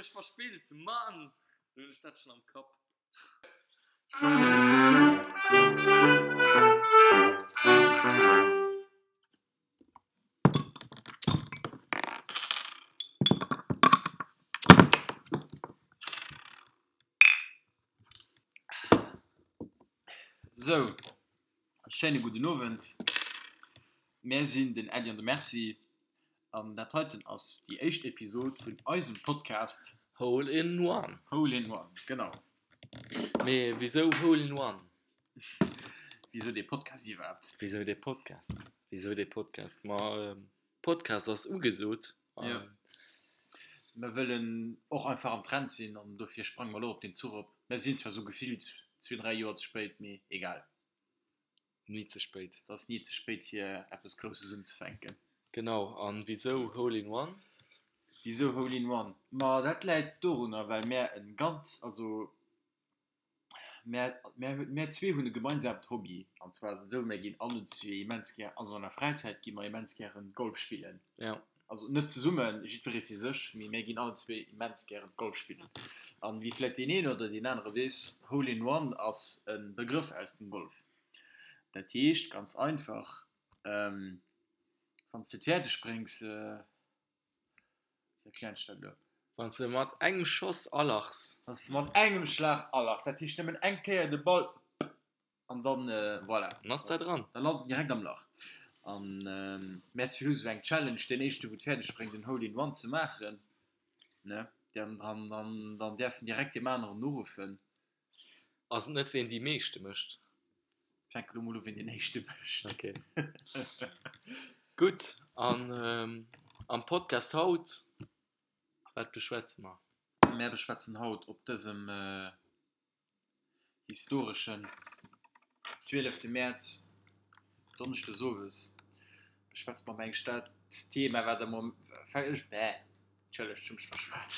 mech verspillt, Mann! Lo hunn ech dat schonn am Kapp. Sou, schéine gudden Owend. Mär sinn den Äddi an de Merci an dat heiten ass déi éischt Episod vun eisem Podcast Hole in One. Hole in One, genau. Mee wisou Hole in One? Wisou dee Podcast iwwerhaapt? Wisou dee Podcast? Wisou dee Podcast? Ma Podcast ass ugesot. Jo. Mer wëllen och einfach am Trend sinn an dofir sprange mer elo op deen Zuch op. Mer sinn zwar sou gefillt zwee, dräi Joer ze spéit, mee egal. Ni ze spéit. Et ass ni ze spéit fir eppes Grousses unzefänken. Genau. An wisou Hole in One? Wisou Hole in One? Ma dat läit dorunner, well mär e ganz, also Mär, mär, mär zwee hunn e gemeinsamt Hobby. An zwar ass et esou, mär ginn allen zwee immens gär, also an der Fräizäit gi mer immens gären Golf spillen. Ja. Also net zesummen, jiddweree fir sech, mee mär ginn allen zwee immens gären Golf spillen. An wéi vläicht deen een oder deen anere weess, Hole in One ass e Begrëff aus dem Golf. Dat heescht ganz einfach, wann s de et fäerdeg bréngs, Wéi erklären ech dat elo? Wann s de mat engem Schoss alachs. Wann s de mat engem Schlag alachs, dat heescht nëmmen eng Kéier de Ball an dann, voilà. Dann ass der dran. Da lant en direkt am Lach. An mär zwee hu sou eng Challenge, deen éischte wou et fäerdeg bréngt en Hole in One ze maachen, ne, dann, dann, dann däerf en direkt deem aneren uruffen. Ass et net ween déi meeschte mécht? Fänke lo mol u ween deen éischte mécht. Ok. Gutt, an am Podcast haut, wat beschwätze mer? Mär beschwätzen haut op dësem historeschen 12 Mäerz, Donneschdes owes, beschwätze mer mengen ech dat Thema wat am Mom, bäh. Entschëllegt, ech hu mech verschwat.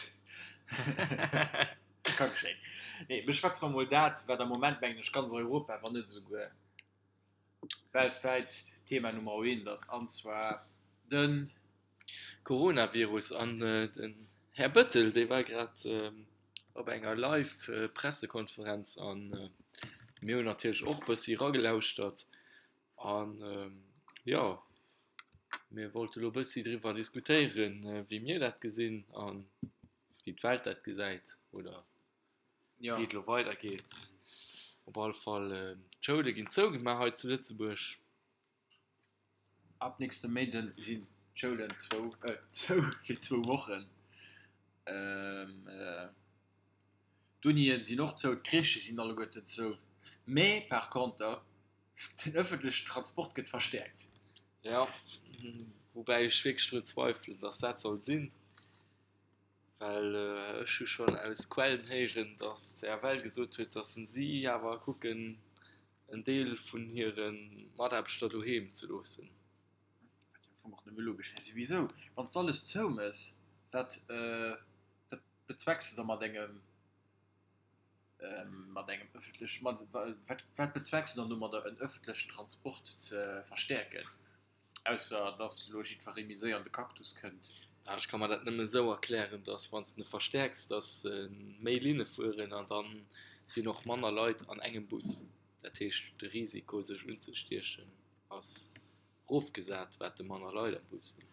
Ka geschéien. Nee, beschwätze mer mol dat, wat am Moment, mengen ech, ganz Europa, wann net esouguer weltwäit Thema Nummer eent ass, an zwar de. Coronavirus. An den Här Bëttel, dee war grad op enger Live-Pressekonferenz a mir hunn natierlech och e bëssi eragelauschtert. An jo, mir wollte lo bëssi driwwer diskutéieren, wéi mir dat gesinn a wéi d'Welt dat gesäit oder wéi et elo weidergeet. Op alle Fall, d'Schoule ginn zougemaach hei zu Lëtzebuerg. Ab nächste Méinden sinn d'Schoulen zou fir zwou Wochen. D'Unien sinn och zou, d'Crèchë sinn alleguerten zou. Mee par conter Den ëffentlechen Transport gëtt verstäerkt. Jo, woubäi ech wierklech drun zweifelen, datt dat soll sinn, well ech hu schonn aus Quellen héieren, datt d'CFL gesot huet, datt si awer kucken, en Deel vun hire Mataarbechter doheem ze loossen. Wat jo am Fong och nëmme logesch wär. Souwisou, wann s de alles zoumëss, wat bezwecks de da mat engem Mat engem ëffentlech, mat, wat, wat bezwecks de dann domadder en ëffentlechen Transport ze verstäerken, ausser dass elo jiddweree méi séier an de Cactus kënnt? Ah, ech ka mer dat nëmme esou erklären, dass wann s de e verstäerks, dass méi Linne fueren an da sinn och manner Leit an engem Bus. Dat heescht, de Risiko sech unzestiechen ass rofgesat, wat de manner Leit am Bus sinn.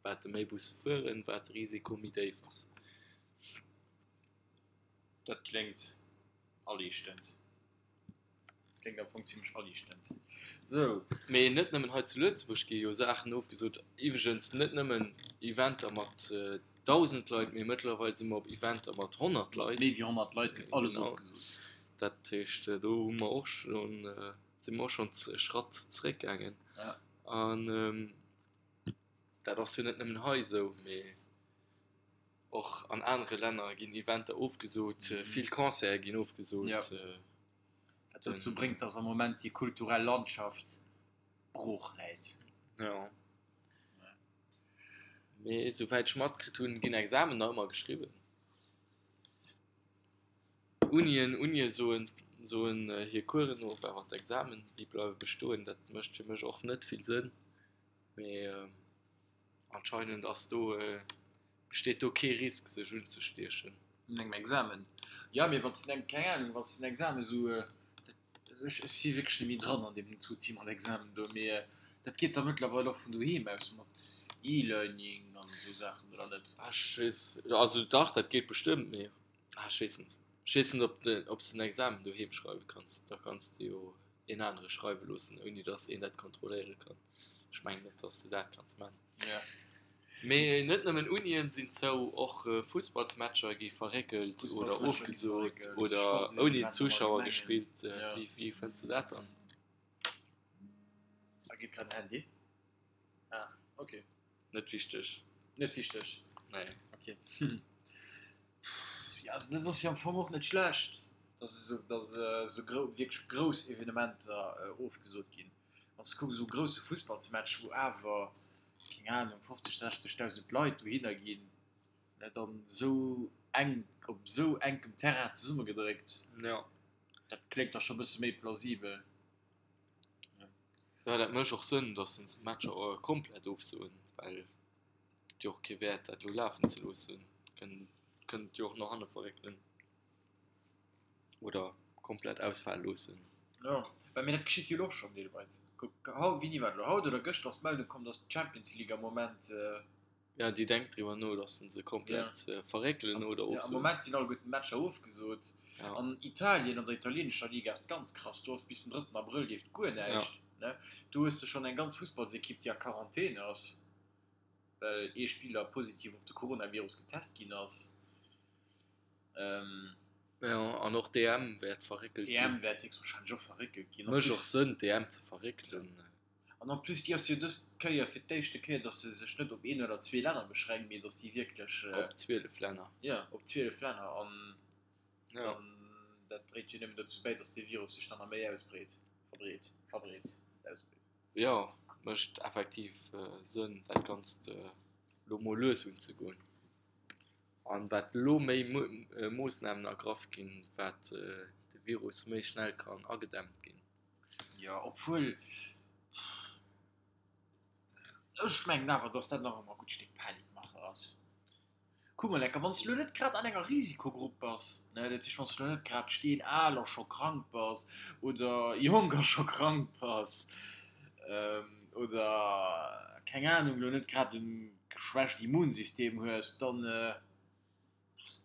Wat de méi Busse fueren, wat de Risiko méi déif ass. Dat kléngt aliichtend. Kléngt am Fong zimlech aliichtend. Sou. Mee net nëmmen hei zu Lëtzebuerg gi jo Saachen ofgesot. Iwweregens net nëmmen Eventer mat 1.000 Leit, mee mëttlerweil si mer op Eventer mat 100 Leit. Méi wéi 100 Leit gëtt alles ofgesot. Dat heescht, do hu mer och schonn, si mer och schonn e Schratt zeréckgaangen. An dat ass jo net nëmmen hei esou, mee. Och an anere Länner ginn Eventer ofgesot, vill Concerte ginn ofgesot. Wat dozou bréngt, dass am Moment déi kulturell Landschaft brooch läit. Jo. Mee esouwäit ech matkritt hunn, ginn Examen nach ëmmer geschriwwen. Unien, Unie soen, soen hir Coursen of, awer d'Examen, déi bleiwe bestoen. Dat mécht fir mech och net vill Sënn. Mee anscheinend ass do. Besteet do kee Risk sech unzestiechen? Un engem Examen? Jo, mee wann s de, keng Ahnung, wann s de den Examen esou, ech si wierklech net méi dran an deem Souci mat Examen do, mee dat geet da mëttlerweil och vun doheem aus mat E-Learning an esou Saachen, oder net? Ah ech weess, also dach dat geet bestëmmt, mee ah ech weess net. Ech weess net ob de, ob s de en Examen doheem schreiwe kanns, da kanns de jo een anere schreiwe loossen, ouni datt een dat kontrolléiere kann. Ech mengen net, datt s de dat kanns man. Ja. Mee net nëmmen Unien sinn zou, och Fussballsmatcher gi verréckelt oder ofgesot oder ouni Zuschauer gespillt. Wéi fënns de dat dann? Da geet grad en Handy. Ah, ok. Net wichteg. Net wichteg? Nee. Ok. Jo, also dat ass jo am Fong och net schlecht, dass esou, dass esou grou, wierklech grouss Evenementer ofgesot ginn. Wann s de kucks, esou e grousse Fussballsmatch, wou awer, keng Anung, 50, 60.000 Leit dohinner ginn, ne, dann esou enk, op esou enkem Terrain zesummegedréckt, Jo. dat kléngt da scho e bësse méi plausibel. Jo, dat mécht och Sënn, dass se d'Matcher komplett ofsoen, well et huet jo och kee Wäert, dat elo lafen ze loossen. Kënnt et jo och no hanne verréckelen. Oder komplett ausfale loossen. Jo, well mee dat geschitt jo elo och schonn deelweis. Kuck, haut, wéini war et elo, haut oder gëschter ass d'Meldung komm, datt d'Champions League am Moment. Jo, déi denkt driwwer no, datt se se komplett verréckelen oder ofsoen. Jo, am Moment sinn alleguerten d'Matcher ofgesot. An Italien, an der italienescher Liga ass et ganz krass, do ass bis den drëtten Abrëll leeft guer näischt. Do hues de schonn eng ganz Fussballsekipp, déi a Quarantän ass, well ee Spiller positiv op de Coronavirus getest ginn ass. Jo, an och d'EM wäert verréckelt ginn. D'EM wäert héchstwahrscheinlech och verréckelt ginn. Mécht och Sënn, d'EM ze verréckelen. An en plus, déi ass jo dës Kéier fir d'éischte Kéier, datt se sech net op een oder zwee Länner beschränkt, mee datt déi wierklech. Op 12 Länner. Jo, op 12 Länner. An dann, dat dréit jo nëmmen dozou bäi, datt dee Virus sech dann nach méi ausbreet, verbreet, verbreet, ausbreet. Jo, mécht effektiv Sënn, dat Ganzt elo mol lues unzegoen. An wat elo méi Moossnamen ergraff ginn, wat de Virus méi schnell kann agedämmt ginn. Jo, obwuel ech mengen awer, datt dat nach ëmmer e gutt Stéck Panikmache ass. Kuck mol enker, wann s de elo net grad an enger Risikogrupp bass, ne, dat heescht, wann s de elo net grad steenal a scho krank bass oder jonk a scho krank bass oder keng Anung, elo net grad e geschwächt Immunsystem hues, dann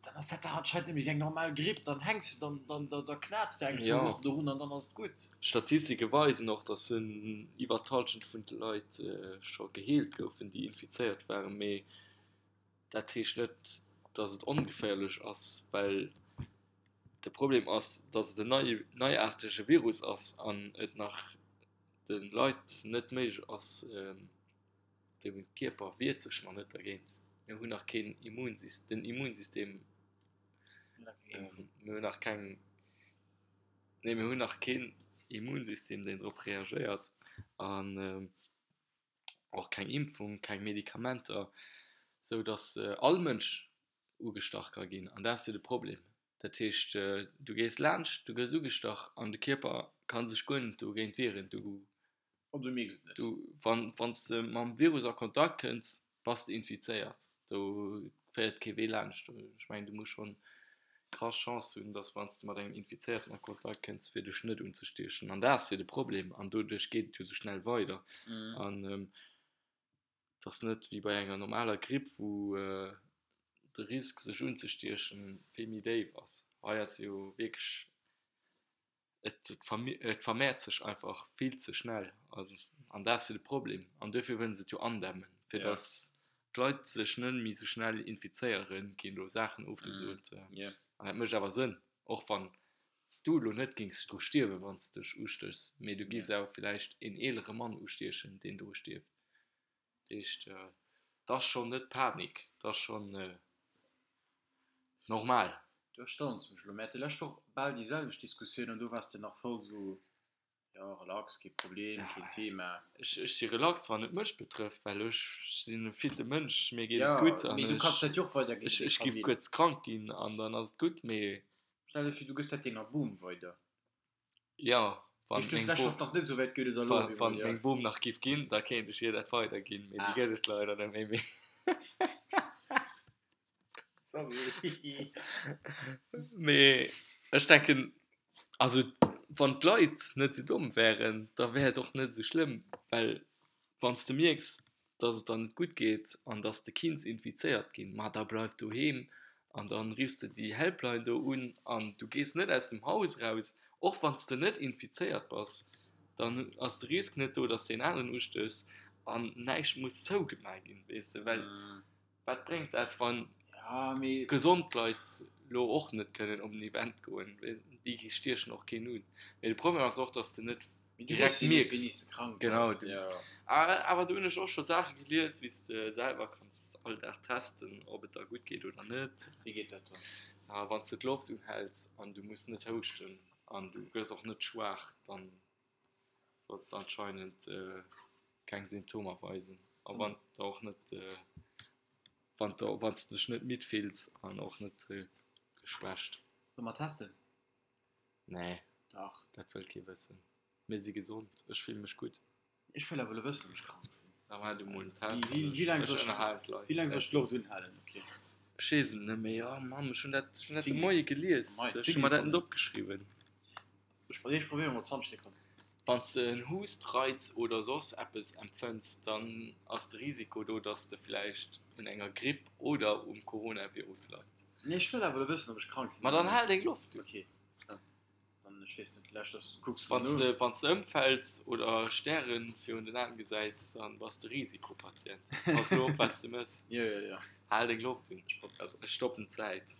dann ass dat dach anscheinend net méi wéi eng normal Gripp, dann hänks de, dann dann da knaz de eng zwou Wochen dorun an dann ass et gutt. Statistike weisen och, datt iwwer d'Hallschent vun de Leit scho geheelt goufen, déi infizéiert waren. Mee dat heescht net, datt et ongeféierlech ass, well de Problem ass, datt et en neiaartege Virus ass an et nach de Leit net méiglech ass, De Kierper wiert sech nach net dergéint. Mir hunn nach keen Immunsystem, den Immunsystem, mir hunn nach keng, nee mir hunn nach keen Immunsystem, deen drop reagéiert an och keng Impfung, keng Medikamenter, sou datt all Mënsch ugestach ka ginn an dat ass jo de Problem. Dat heescht, du gees laanscht, du gëss ugestach an de Kierper ka sech guer net dogéint wieren. Du An du mierks et net. Du, wann, wann s de mam Virus a Kontakt kënns, bass de infizéiert. Do féiert kee Wee laanscht. Ech mengen, du muss schonn krass Chance hunn, dass wann s de mat engem Infizéierten a Kontakt kënns, fir dech net unzestiechen. An dat ass jo de Problem. An doduerch geet et jo esou schnell weider. An et ass net wéi bei enger normaler Gripp, wou de Risk sech unzestiechen vill méi déif ass. Hei ass jo wierklech Et vermehrt sech einfach vill ze schnell an dat ass jo de Problem an duerfir wëllen se et jo andämmen, fir datt d'Leit sech net méi esou schnell infizéieren, ginn do Saachen ofgesot an dat mécht awer Sënn, och wann s du elo net géings dru stierwen, wann s dech ustéchs, mee du géifs awer villäicht een eelere Mann ustiechen, deen dru stierft. Dat heescht, et ass schonn net Panik, et ass schonn normal. Du erstauns mech elo. Mir hate lescht Woch bal déi selwecht Diskussioun an do waars de nach voll esou, jo relax, kee Problem, keen Thema. Ech si relax wann et mech betrëfft, well ech sinn e fitte Mënsch, mir geet et gutt an ech ech giff kuerz krank ginn an dann ass et gutt, mee. Stell der vir, du gëss dat denger Bom weider. Jo, wann meng Bom, wann meng Bom nach giff ginn, da kéint ech hir dat weiderginn, mee déi gëtt et leider net méi. Sorry. Mee ech denken, also wann d'Leit net esou domm wären, da wär et och net esou schlëmm, well wann s de mierks, dass et der net gutt geet an dass de kinns infizéiert ginn, ma da bleif doheem an dann riffs de déi Helpline do un an du gees net aus dem Haus raus, och wann s de net infizéiert bass, dann ass de Risk net do, dass de een aneren ustéchs an näischt muss zougemaach ginn, weess de, well Wat bréngt dat, wann gesond Leit lo och net kënnen op en Event goen? Déi stiechen och keen un. Mee de Problem ass och, dass de net direkt mierks. Genau. Awer do hunn ech och scho Saache gelies, wéi s de selwer kanns all Dag testen, ob et der gutt geet oder net. Wéi geet dat dann? Wann s de d'Loft unhäls an du muss net houschten an du gëss och net schwaach, dann solls de anscheinend keng Symptomer weisen a wann de och net wann de wann s de dech net midd fills an och net geschwächt. Solle mer testen? Nee, Dach. dat wëllt kee wëssen. Mir si gesond, ech fille mech gutt. Ech wëll awer elo wëssen, ob ech krank sinn. Da maach du mol en Test an ech ech ech ënnerhalen d'Leit. Wéi laang soll ech d'Loft unhalen? Ok. Ech weess et net méi. Oh Mann, ech hunn dat ech hunn dat de Moie gelies. Ech hu mer dat net opgeschriwwen. Ech probéieren mol 20 Sekonnen. Wann s de en Hustreiz oder soss eppes empfënns, dann ass de Risiko do, dass de vläicht un enger Gripp oder um Coronavirus leits. Nee, ech wëll awer elo wëssen, ob ech krank sinn Ma oder dann net. hal deng Loft un. Ok, dann, ech weess net, vläicht ass, kucks du Wann s no. de, wann s de ëmfäls oder Stäre virun den Aen gesäis, dann bass de Risikopatient. Pass elo op, wat s de mëss. Jo, jo, jo. Hal deng Loft un. Ech prob, also. Ech stoppen d'Zäit.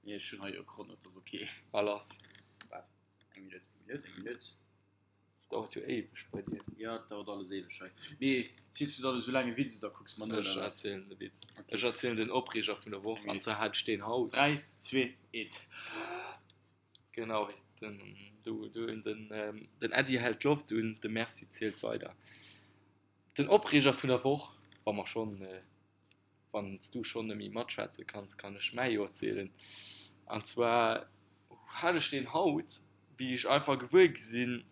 Nee, ech hunn hei jo e Chrono, dat ass ok. A lass. Waart, eng Minutt, eng Minutt, eng Minutt. Dauert jo éiweg bei dir. Jo, et dauert alles éiweg hei. Mee ziels du dann esou laang e Witz oder kucks mer no, Ech oder wat? erzielen de Witz. Ok. Ech erzielen den Opreeger vun der Woch, Eng an Minutt. zwar hat ech deen haut. 3, 2, 1. Genau, den, du, du, den, den Äddi hält d'Loft un, de Merci zielt weider. Den Opreeger vun der Woch, wa mer schonn Wann s du schonn net méi matschwätze kanns, kann ech mäi jo erzielen. An zwar hat ech deen haut, wéi ech einfach gewuer gi sinn,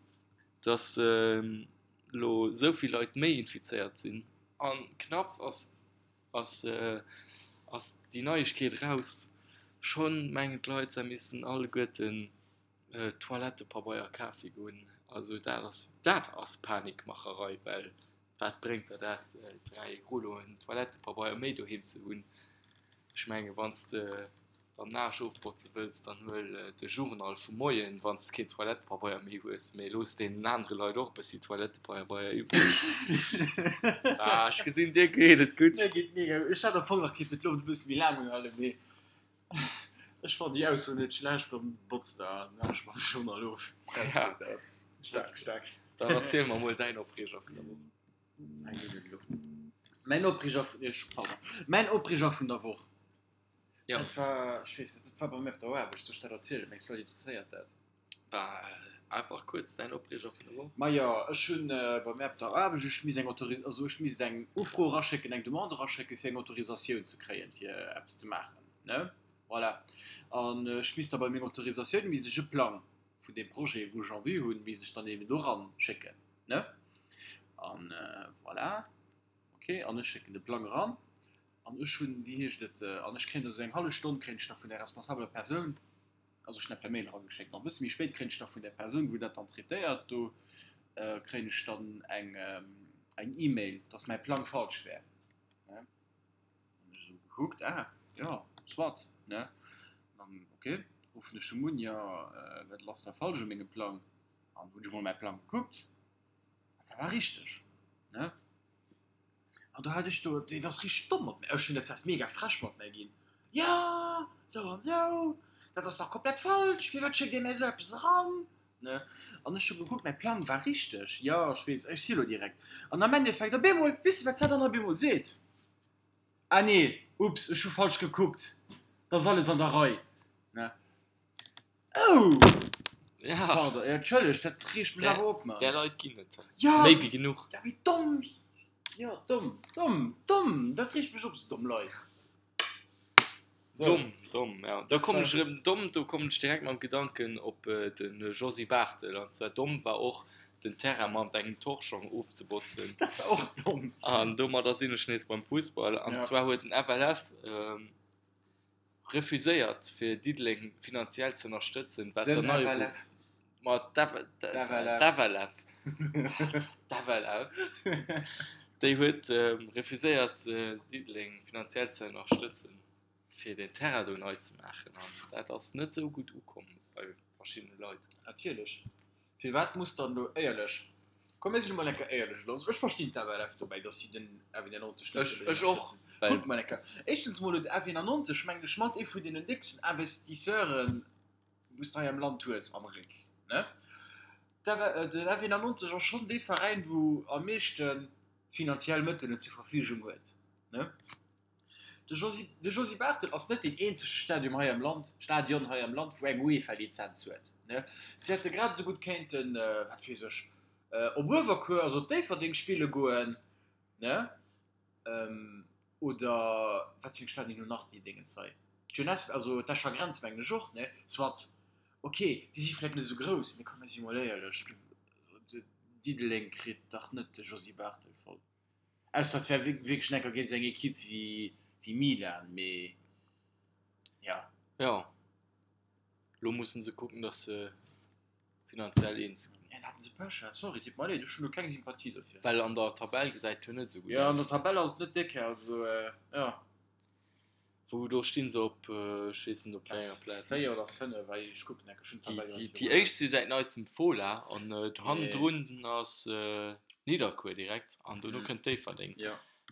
dass elo esou vill Leit méi infizéiert sinn. A knapps ass ass ass déi Neiegkeet eraus, schonn mengen d'Leit, se missten alleguerten Toilettepabeier kafe goen. Also dat ass dat ass Panikmacherei, well Wat bréngt der dat, 3 Rulloen Toilettepabeier méi doheem ze hunn? Ech mengen, wann s de dann den Aarsch ofbotze wëlls, dann huel de Journal vum Moien, wann s de keen Toilettepabeier méi hues. Mee looss deenen anere Leit och e bëssi Toilettepabeier iwwreg. Ah, ech gesinn, dir geet et gutt. Mir geet mega gutt. Ech hätt am Fong nach kinnt d'Loft e bësse méi laang unhalen, mee ech fannen déi Ausso net schlecht. Dann botz der den Aarsch mam Journal of. Ja. Dat ass staark, staark. Dann erziel mer mol däin Opreeger vun der Woch. Eng Minutt elo. Mäin Opreeger vun, ech, pardon, mäin Opreeger vun der Woch. Ja. Dat war, ech weess net, dat war bei mir op der Aarbecht. Soll ech dat erzielen? Mengs du, d'Leit interesséiert dat? Bah, einfach kuerz däin Opreeger vun der Woch. Majo, ech hunn bei mir op der Aarbecht, ech misst eng Autoris-, also ech misst eng Ufro eraschécken, eng Demande eraschécken, fir eng Autorisatioun ze kréien, fir eppes ze maachen, ne? Voilà. An ech misst da bei menger Autorisatioun, misst ech e Plang vun deem Projet, wou ech en vue hunn, misst ech dann eben do eran schécken, ne? An voilà, ok, an ech schécken de Plang eran an ech hunn, wéi heescht et, an ech kréien da sou eng hallef Stonn kréien ech da vun där responsabeler Persoun, also ech hunn dat per Mail erageschéckt, an e bësse méi spéit kréien ech da vun där Persoun, wou dat dann traitéiert, do kréien ech dann eng eng E-Mail, dass mäi Plang falsch wär, ne? An ech esou gekuckt, ah jo, soit, ne? An ok, ruffen ech em un, jo, wat ass da falsch u mengem Plang? An hunn ech emol mäi Plang gekuckt, an dat war richteg, ne? An do hat ech do, deen ass richteg domm mat mär, ech hunn dat zwar mega frech mat mär ginn, jo, sou an sou, dat ass dach komplett falsch, firwat schéckt Dir mär esou eppes eran? Ne? An ech hu gekuckt, mäi Plang war richteg, jo, ech weess, ech si lo direkt. An am Endeffekt, op eemol, weess de, wat s'at dann op eemol seet? Ah nee, ups, ech hu falsch gekuckt, 't ass alles an der Rei. Ne? Oh! Ja. Pardon, ja, entschëllegt, dat reegt mech awer op, Mann. Där Leit ginn et Ja! méi wéi genuch. Ja, mee domm! Jo, domm, domm, domm! Dat reegt mech op, esou domm Leit. Domm, domm, ja. Da kommen ech erëm, domm, do kommen ech direkt mam Gedanken op de Josy Barthel. An zwar domm war och, den Terrain mat engem Torschong ofzebotzen. Dat war och domm. An domadder sinn ech nees beim Fussball. An zwar huet den FLF. Refuséiert fir Diddeleng finanziell ze ënnerstëtzen, wat der nei Ma d'FLF d'FLF déi huet refuséiert Diddeleng finanziell ze ënnerstëtzen fir den Terrain do nei ze maachen an dat ass net esou gutt ukomm bei verschiddene Leit. Natierlech. Firwat muss dann elo éierlech, komm mir sinn emol eng Kéier éierlech elo, also ech verstinn d'FLF dobäi, datt si den F91 net wëllen Ech och, ënnerstëtzen. Kuckt mol eng Kéier, éischtens mol huet F91, mengen ech, mat ee vun deenen décksten Investisseuren, wou s de hei am Land hues am Réck, ne? Den F91 ass schonn dee Veräin, wou am meeschte finanziell Mëttelen zur Verfügung huet, ne? De Josy, de Josy Barthel ass net deen eenzege Stadium hei am Land, Stadion hei am Land, wou eng UEFA-Lizenz huet, ne? Si hätte grad esou gutt kéinten, wat weess ech, op Uewerkuer, also op Déifferdeng spille goen, ne? Oder wat fir eng Stadien hunn nach déi Déngens hei? D'Jeunesse, also d'Escher Grenz mengen ech och, ne? Soit, ok, déi si vläicht net esou grouss, mee komm, mir si mol éierlech, Diddeleng kritt dach net de Josy Barthel voll. Ausser et wär wierklech enker géint esou eng Ekipp wéi Milan, mee jo. Jo, lo mussen se kucken, datt se finanziell eens ginn. Ja, haten se Pech, sorry, deet mer leed, ech hunn do keng Sympathie dofir. Well an der Tabell gesäit et jo net esou gutt aus. Jo, an der Tabell ass et net déck, also jo. Wou do stinn se op, ech weess net op wéi enger Plaz. 4 oder 5, well ech kucken enke, ech hunn d'Tabell grad virun. Déi éischt si säit neistem Fola an hannendrun ass Nidderkuer direkt an dono kënnt Déifferdeng.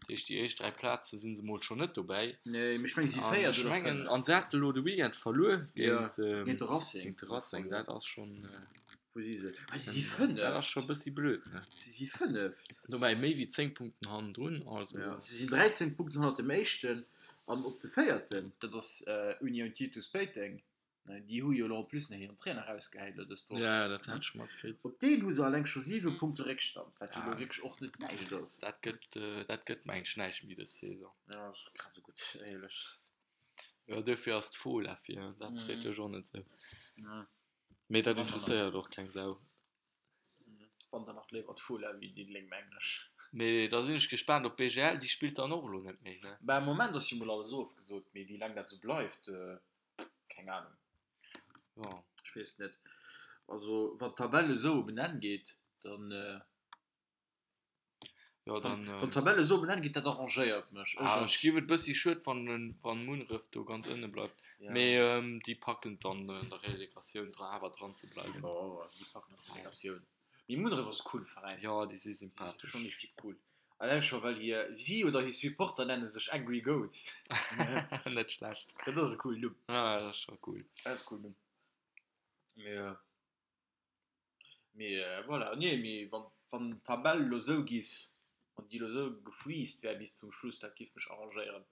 Dat heescht déi éischt 3 Plaze si se mol schonn net dobäi. Nee, mee ech mengen si si véiert oder fënneft. An se hate lo de Weekend verluer géint de Racing. Géint de Racing, dat ass schonn. Wou si se? Ah, si si fënneft. Dat ass scho e bëssi blöd, ne? Si si fënneft. Dobäi méi wéi 10 Punkten hannendrun, also. Jo, si sinn 13 Punkten hannert dem éischten an op de véierten, dat ass Union Titus Péiteng, déi hu jo elo en plus nach hiren Trainer erausgehäit elo dës Woch. Ja, dat hat ech matkritt. Op deen hu se alleng scho 7 Punkte Réckstand, wat jo elo wierklech och net näischt ass. Dat gëtt, dat gëtt mengen ech näischt méi dës Saison. Jo, ass grad esou gutt, éierlech. Jo, duerfir ass d'Fola vir, dat freet dech och net esou. Mee dat interesséiert och keng Sau. Wann dann nach léiwer d'Fola wéi Diddeleng, mengen ech. Mee da sinn ech gespaant op BGL, déi spillt dann och elo net méi, ne? Bah, am Moment ass jo mol alles ofgesot, mee wéi laang dat esou bleift, keng Ahnung. Jo. Ech weess net. Also wann d'Tabell esou op en Enn geet, dann. Jo, dann. Wann d'Tabell esou op en Enn geet, dat arrangéiert mech. Ech Ah, ech géif et bëssi schued fannen, wann Munneref do ganz ënne bleift. Ja. Mee déi packen et dann an der Relegatioun dra awer dran ze bleiwen. Jo, déi packen och d'Relegatioun. Mee Munneref ass e coole Veräin. Jo, déi si sympathesch. Schonn richtig cool. Alleng scho well hir, si oder hir Supporter nenne sech Angry Goats. Net schlecht. Dat ass e coolen Numm. Ja, dat ass scho cool. Dat ass e coolen Numm. Mee. Mee voilà, nee, mee wann, wann d'Tabell elo esou giff, wann déi elo esou gefreezed wär bis zum Schluss, dat giff mech arrangéieren.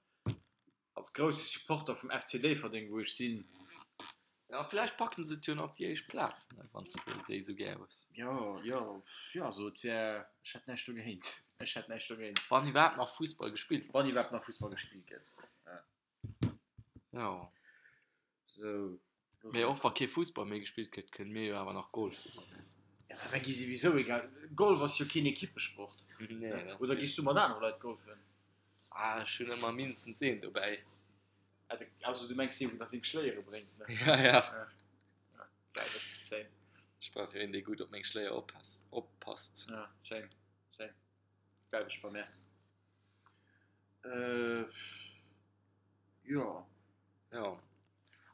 Als grousse Supporter vum FC Déifferdeng, wou ech sinn. Ja, vläicht packen se et jo nach op déi éischt Plaz, wann s de déi esou gär hues. Jo, jo, jo, also et wär, ech hätt näischt dogéint, ech hätt näischt dogéint. Wann iwwerhaapt nach Fussball gespillt gëtt. Wann iwwerhaapt nach Fussball gespillt gëtt, ja. Jo. Sou. Mee och wa kee Fussball méi gespillt gëtt, kënne mir jo awer nach Golf spillen. Ja, mä mir gi souwisou egal. Golf ass jo keen Ekippesport. Nee, dat ass Oder gis du mat anere Leit golfen? Ah, ech hunn ëmmer mindestens een dobäi. Also du mengs dee wou nach deng Schléiere bréngt, ne? Ja, ja. Ja, selwecht, same. Ech brauch jo een, dee gutt op meng Schléier oppasst, oppasst. Ja, same, same. Selwecht bei mär. Äh, jo. Jo,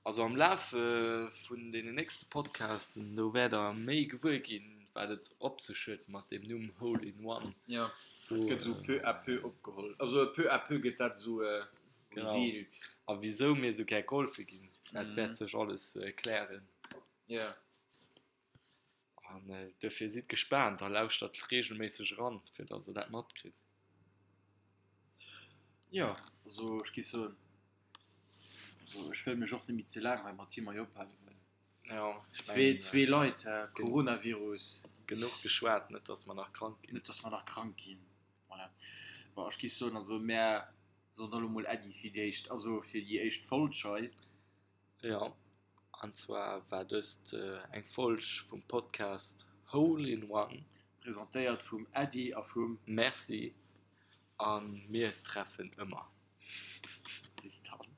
also am Laf vun deenen nächste Podcasten, do wäert der méi gewuer ginn, wat et op sech huet mat deem Numm Hole in One. Jo, dat gëtt esou peu à peu opgeholl. Also peu à peu gëtt dat esou revealed. A wisou mir esou gär golfe ginn, dat wäert sech alles klären. Jo. An duerfir sidd gespaant a lauschtert reegelméisseg eran, fir datt der dat matkritt. Jo, also ech géif soen, also ech wëll mech och net méi ze laang hei mat him hei ophalen, well Jo, ech zwee, mengen, zwee Leit, hä, Coronavirus. Genuch geschwat, net datt mer nach krank ginn. Net datt mer nach krank ginn, voilà. Bon, ech géif soen, also mär soen da lo mol Äddi fir déi éischt, also fir déi éischt Folg hei. Jo, an zwar war dëst eng Folg vum Podcast Hole in One. Presentéiert vum Äddi a vum. Merci a mir treffen ëmmer. Bis dann.